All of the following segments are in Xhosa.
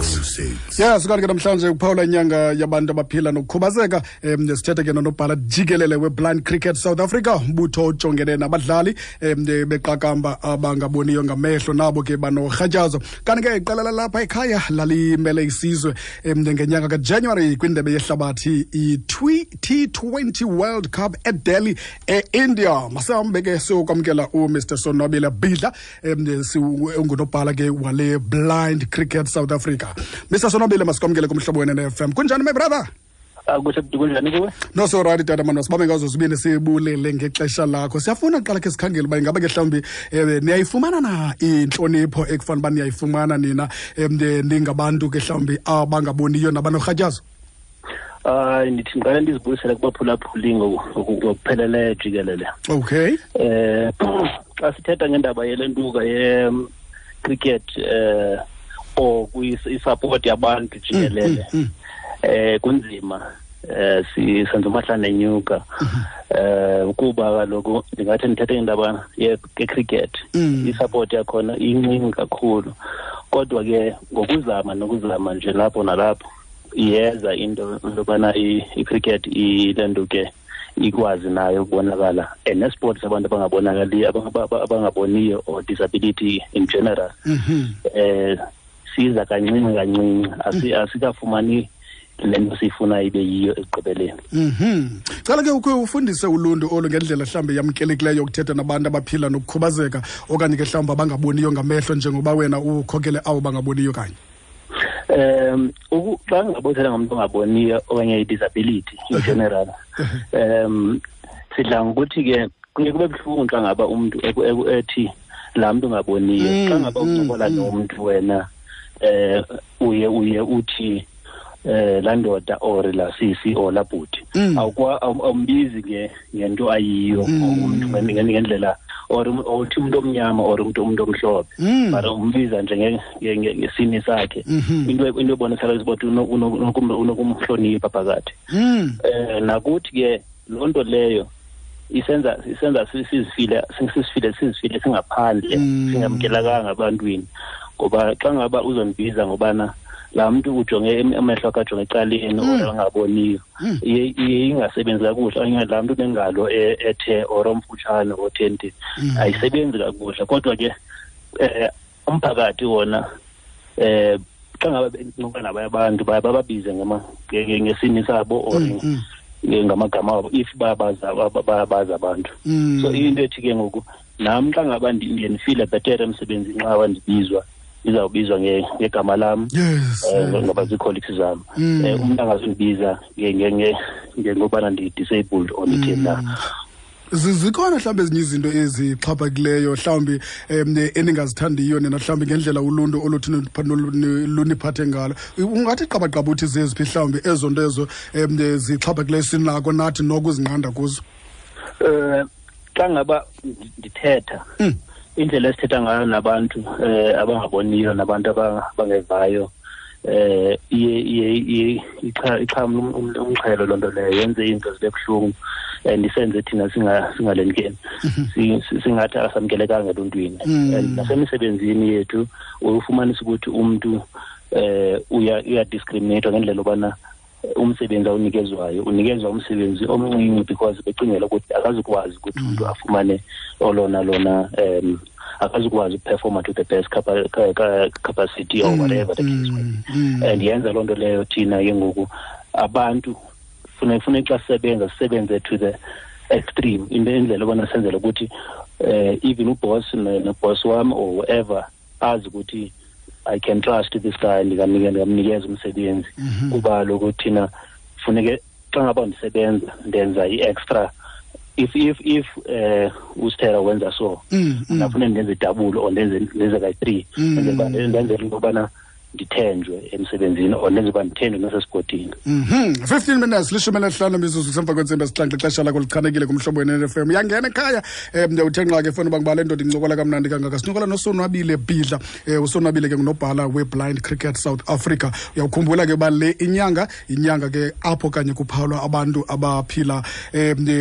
06. Ya, sikanti ke namhlanje kuphawula inyanga yabantu abaphila nokukhubazeka. Sithethe ke nonobhala jikelele we-Blind Cricket South Africa, umbutho ojongene nabadlali beqakamba abangaboniyo ngamehlo nabo ke banorhatyazo. Kanti ke iqela lalapha ekhaya lalimele isizwe ngenyanga kaJanuary kwindebe yehlabathi i-T20 World Cup eDelhi eIndia. Masihambe ke siyokwamkela uMr Sonwabile Bidla, ungunobhala ke wale Blind Cricket South Africa. Mr Sonwabile, masikwamkele kumhlobo wena ne-FM. Kunjani, my brother? Kuhle, kunjani kuwe? No, so right, tata mani, sibabe ngazo zibini sibulele ngexesha lakho. Siyafuna kuqala ke sikhangele uba ingaba ke mhlawumbi niyayifumana na intlonipho ekufanele uba niyayifumana nina ningabantu ke mhlawumbi abangaboniyo nabanorhatyazo? Hayi, ndithi ndiqale ndizibuyisele kubaphulaphuli ngokupheleleyo jikelele. Xa sithetha ngendaba yelentuka ye-cricket or i-support yabantu jikelele, kunzima, senza umahlane enyuka. Kuba kaloku ndingathi ndithethe ngendaba ye-cricket, i-support yakhona incinci kakhulu, kodwa ke ngokuzama nokuzama nje lapho nalapho iyeza into yobana i-cricket ilento ke ikwazi nayo ukubonakala, and nesport sabantu abangabonakaliyo, abangaboniyo or disability in general. Siza kancinci kancinci, asikafumani le nto siyifuna ibe yiyo ekugqibeleni. Cela ke ukhe ufundise uluntu olu ngendlela mhlawumbi yamkelekileyo yokuthetha nabantu abaphila nokukhubazeka okanye ke mhlawumbi abangaboniyo ngamehlo, njengoba wena ukhokele abo bangaboniyo kanye. Xa ngingabothetha ngomntu ongaboniyo okanye i-disability in general, sidla ngokuthi ke kuye kube buhlungu xa ngaba umntu ethi laa mntu ungaboniyo. Xa ngaba uncokola nomntu wena, uye uthi laa ndoda or laa sisi or laa bhuti, awumbizi ngento ayiyo umntu ngendlela, or uthi umuntu omnyama or umuntu omhlophe, but umbiza nje ngesini sakhe. Into ebonakala ukuthi unokumhlonipha phakathi. Nakuthi ke loo nto leyo isenza sizifile singaphandle, singamkelakanga ebantwini, ngoba xa ngaba uzondibiza ngobana laa mntu ujonge amehlo akhe ajonge ecaleni or angaboniyo, iye ingasebenzi kakuhle, okanye laa mntu unengalo ethe or omfutshane othenti, ayisebenzi kakuhle. Kodwa ke umphakathi wona, xa ngaba bencokola nabanye abantu baye bababize ngesini sabo or ngamagama abo if bayabaza abantu. So into ethi ke ngoku nam xa ngaba ndiye ndifile bhetere emsebenzini xa ngaba ndibizwa, ndizawubizwa ngegama lam, ngoba zii-colleagues zam. Umntu angazundibiza ngobana ndi-disabled or nditheni na. Zikhona mhlawumbi ezinye izinto ezixhaphakileyo mhlawumbi eningazithandiyo nina mhlawumbi ngendlela uluntu oluthi luniphathe ngalo? Ungathi qabaqaba uthi zeziphi mhlawumbi ezo nto ezo zixhaphakileyo sinako nathi nokuzinqanda kuzo? Xa ngaba ndithetha, indlela esithetha ngayo nabantu abangaboniyo nabantu abangevayo, iye ixhamle umxhelo loo nto leyo, yenze iinto zibe buhlungu and isenze thina singalendikeni, singathi asamkelekanga eluntwini. And nasemisebenzini yethu ufumanisa ukuthi umntu uya-discriminate ngendlela yobana umsebenzi awunikezwayo unikezwa umsebenzi omncinci because becingela ukuthi akazukwazi ukuthi umntu afumane olona lona, akazukwazi ukuperforma to the best capacity or whatever the case may be. And yenza loo nto leyo thina ke ngoku abantu funa xa sisebenza sisebenze to the extreme, into indlela yobana senzele ukuthi even uboss noboss wam or whoever azi ukuthi I can trust this guy, ndingamnikeza umsebenzi. Kuba kaloku thina funeke xa ngaba ndisebenza ndenza i-extra. If usithera wenza so, mna funeke ndenze idouble or ndenze kayi-3, ndenzele into yobana ndithenjwe emsebenzini or ndenze uba ndithenjwe nasesigodini. 15 minutes, 15 mizuzu kusemva kwentsimbi 7, ixesha lakho lichanekile kumhlobo we-N F M. Uyangena ekhaya, uthe nqa ke funa uba ngibale ndoda incokola kamnandi kangaka. Sincokola noSonwabile Bidla. USonwabile ke ngunobhala we-Blind Cricket South Africa. Uyawukhumbula ke uba le inyanga, inyanga ke apho kanye kuphawulwa abantu abaphila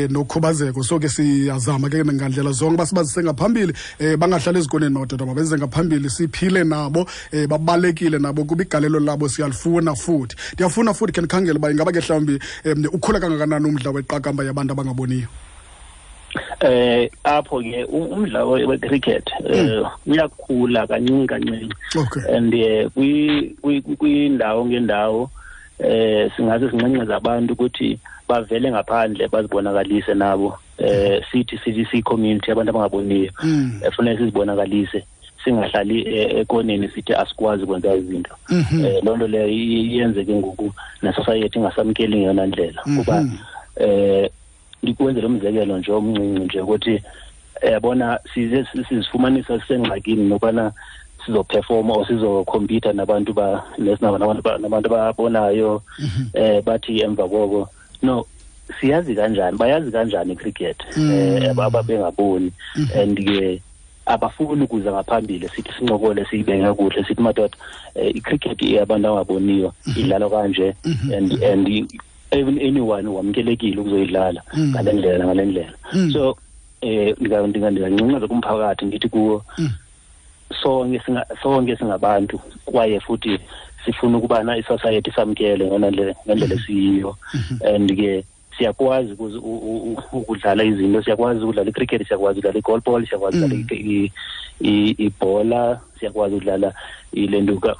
nokhubazeko. So ke siyazama ke ngandlela zonke uba sibazise ngaphambili, bangahlali ezikoneni madoda, mabenze ngaphambili, siphile nabo, babalekile. nabo kuba igalelo labo siyalifuna futhi. Ndiyafuna futhi khe ndikhangele uba ingaba ke mhlawumbi ukhula kangakanani umdla weqakamba yabantu abangaboniyo. Apho ke umdlalo we-cricket uyakhula kancinci kancinci. And kwindawo ngendawo singaze sinxenxeze abantu ukuthi bavele ngaphandle bazibonakalise nabo. Sithi sithi community abantu abangaboniyo efuneka sizibonakalise, singahlali ekoneni sithi asikwazi ukwenza izinto. Loo nto leyo yenzeke ngoku ne-society ingasamkeli ngeyona ndlela. Kuba ndikwenzele umzekelo nje omncinci nje ukuthi yabona size sizifumanisa sisengxakini nokubana sizoperforma or sizokhompyutha nabantu nabantu ababonayo, bathi emva koko no siyazi kanjani, bayazi kanjani icricket ababengaboni, and ke abafuni ukuza ngaphambili sithi sincokole siyibeke kakuhle sithi madoda icricket yabantu abangaboniyo idlalwa kanje, and even anyone wamkelekile ukuzoyidlala ngale ndlela ngale ndlela. So ndingancincaza kumphakathi ndithi kuwo sonke singabantu kwaye futhi sifuna ukubana isociety samkele ngendlela esiyiyo, and ke siyakwazi ukudlala izinto, siyakwazi ukudlala icricket, siyakwazi ukudlala i-goalball, siyakwazi ukudlala ibhola, siyakwazi ukudlala ilentuka,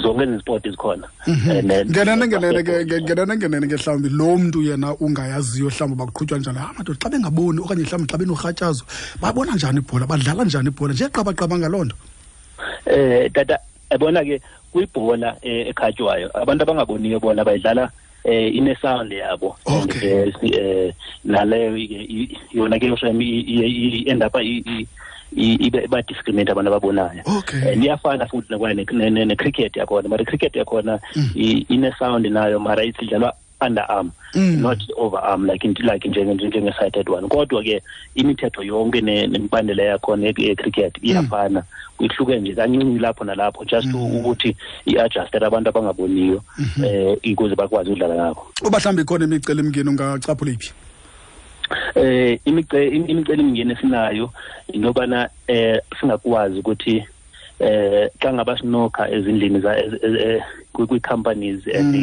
zonke ezi sport zikhona. Ngenene ke mhlawumbi lo mntu yena ungayaziyo mhlawumbi bakuqhutywa njani, madoda xa bengaboni okanye mhlawumbi xa benorhatyazo babona njani ibhola, badlala njani ibhola nje qabaqaba ngaloo nto. Tata, yabona ke kwibhola ekhatywayo abantu abangaboniyo bona bayidlala ine-sound yabo. Naleyo yona ke i-end up iba-discriminate abantu ababonayo. Iyafana futhi ne-cricket yakhona, mara i-cricket yakhona ine-sound nayo, mara idlalwa underarm, not overarm like njenge-sighted one. Kodwa ke imithetho yonke nemibandela yakhona ye-cricket iyafana, ihluke nje kancinci lapho nalapho, just ukuthi i-adjustele abantu abangaboniyo ukuze bakwazi ukudlala ngakho. Uba mhlawumbi ikhona imicelimngeni ungacaphula iphi? Imicelimngeni esinayo into yobana singakwazi ukuthi xa ngaba sinokha ezindlini kwii-companies and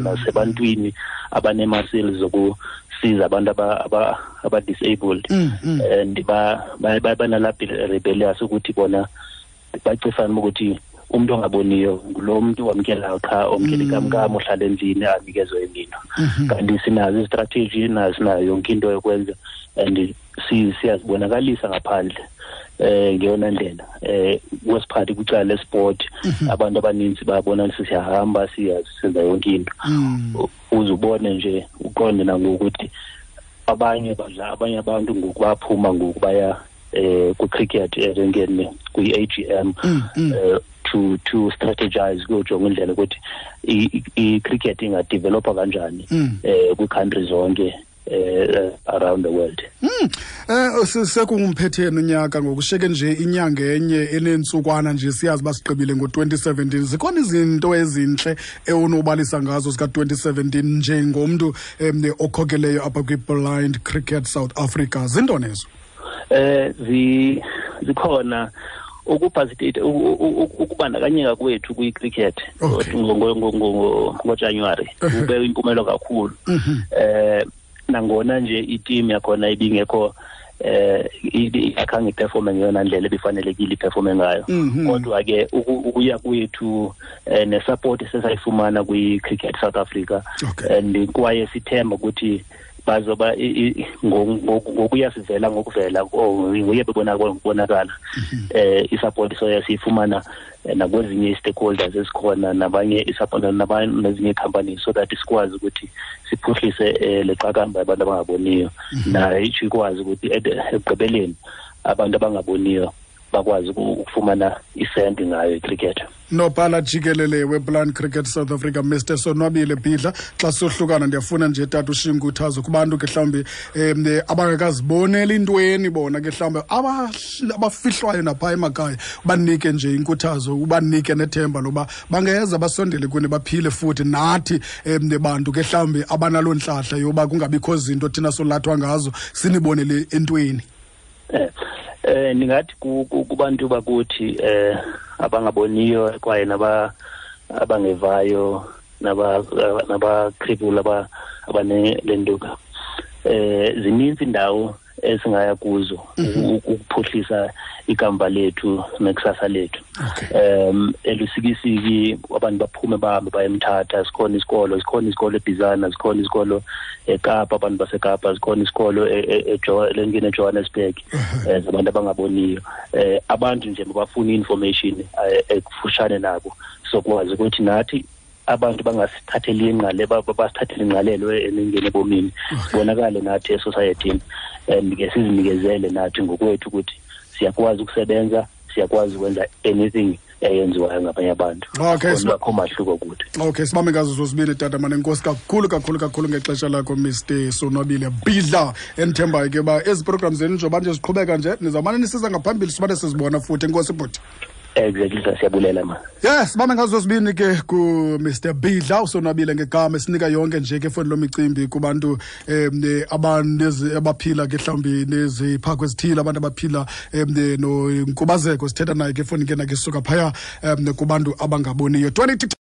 nasebantwini abanee-muscles zokusiza abantu aba-disabled, and banalaa rebellious ukuthi bona bacifana ukuthi umuntu ongaboniyo ngulo muntu wamkelayo qha, omkela ikamkam, ohlala endlini anikezwe imino. Kanti sinazo izistrategy, sinayo yonke into yokwenza, and siyazibonakalisa ngaphandle ngeyona ndlela. Kwesiphathi kwicala lesport, abantu abaninzi bayabona siyahamba siyenza yonke into. Uze ubone nje uqonde nangokuthi abanye badla, abanye abantu ngoku baphuma ngoku baya kwi-cricket erenkeni kwi-AGM to strategize kuyojonga indlela ukuthi i-cricket ingadevelopa kanjani kwi-country zonke around the world. Sekungumphethe unyaka ngokusheke nje inyanga enye enentsukwana nje, siyazi basigqibile ngo-2017. Zikhona izinto ezintle ewunobalisa ngazo zika-2017 njengomntu okhokeleyo apha kwi-Blind Cricket South Africa? Zintoni ezo? Zikhona. Ukubandakanyeka kwethu kwi-cricket ngoJanuary kube impumelo kakhulu. Nangona nje iteam yakhona ibingekho akhange iperforme ngeyona ndlela ebifanelekile iperforme ngayo, kodwa ke ukuya kwethu nesupport esesayifumana kwi-Cricket South Africa, and kwaye sithemba ukuthi bazoba ngokuya sivela ngokuvela nguye bebonakala isupport soya siyifumana nakwezinye i-stakeholders esikhona nabanye isupport nezinye companies, so that sikwazi ukuthi siphuhlise le qakamba yabantu abangaboniyo, nayo ikwazi ukuthi ekugqibeleni abantu abangaboniyo bakwazi ukufumana isenti ngayo icricket. Nobhala jikelele weBlind Cricket South Africa, Mr Sonwabile Bhidla, xa sohlukana ndiyafuna nje tata ushiye inkuthazo kubantu ke mhlawumbi abangekaziboneli intweni bona ke mhlawumbi abafihlwayo napha emakhaya, banike nje inkuthazo, ubanike nethemba loba bangeza basondele kuni baphile futhi nathi bantu ke mhlawumbi abanaloo ntlahla yoba kungabikho zinto thina solathwa ngazo sinibonele entweni. Ndingathi kubantu bakuthi abangaboniyo kwaye naba abangevayo naba-cripple abanelentuka, zininzi indawo esingaya kuzo ukuphuhlisa ikamva lethu nekusasa lethu. Elusikisiki abantu baphume bahambe baye eMthatha, sikhona isikolo, sikhona isikolo eBhizana, sikhona isikolo eKapa, abantu baseKapa, sikhona isikolo lengene eJohannesburg, zabantu abangaboniyo. Abantu nje mabafune i-information ekufushane nabo, sokwazi ukuthi nathi abantu bangasithatheli ingqale, basithathele ingqalelo enengene ebomini, sibonakale nathi esosayethini, and ke sizinikezele nathi ngokwethu ukuthi siyakwazi ukusebenza, siyakwazi ukwenza anything eyenziwayo ngabanye abantu. Akho mahluko kuthi. Okay, sibambe ngazo zozibini tata mane. Enkosi kakhulu kakhulu kakhulu ngexesha lakho, Mr Sonwabile Bidla. Endithembayo ke uba ezi program zenu njengoba nje ziqhubeka nje, nizawumane nisiza ngaphambili, sibane sizibona futhi. Enkosi, bhuti. Exactly, siyabulela ma. Yes, sibambe ngazo zozibini ke ku Mr Bidla uSonwabile ngegama, esinika yonke nje ke foni lomicimbi kubantu abanezi abaphila ke mhlawumbi neziphako ezithile, abantu abaphila nonkubazeko. Sithetha naye ke foni ke nake suka phaya kubantu abangaboniyo. 20.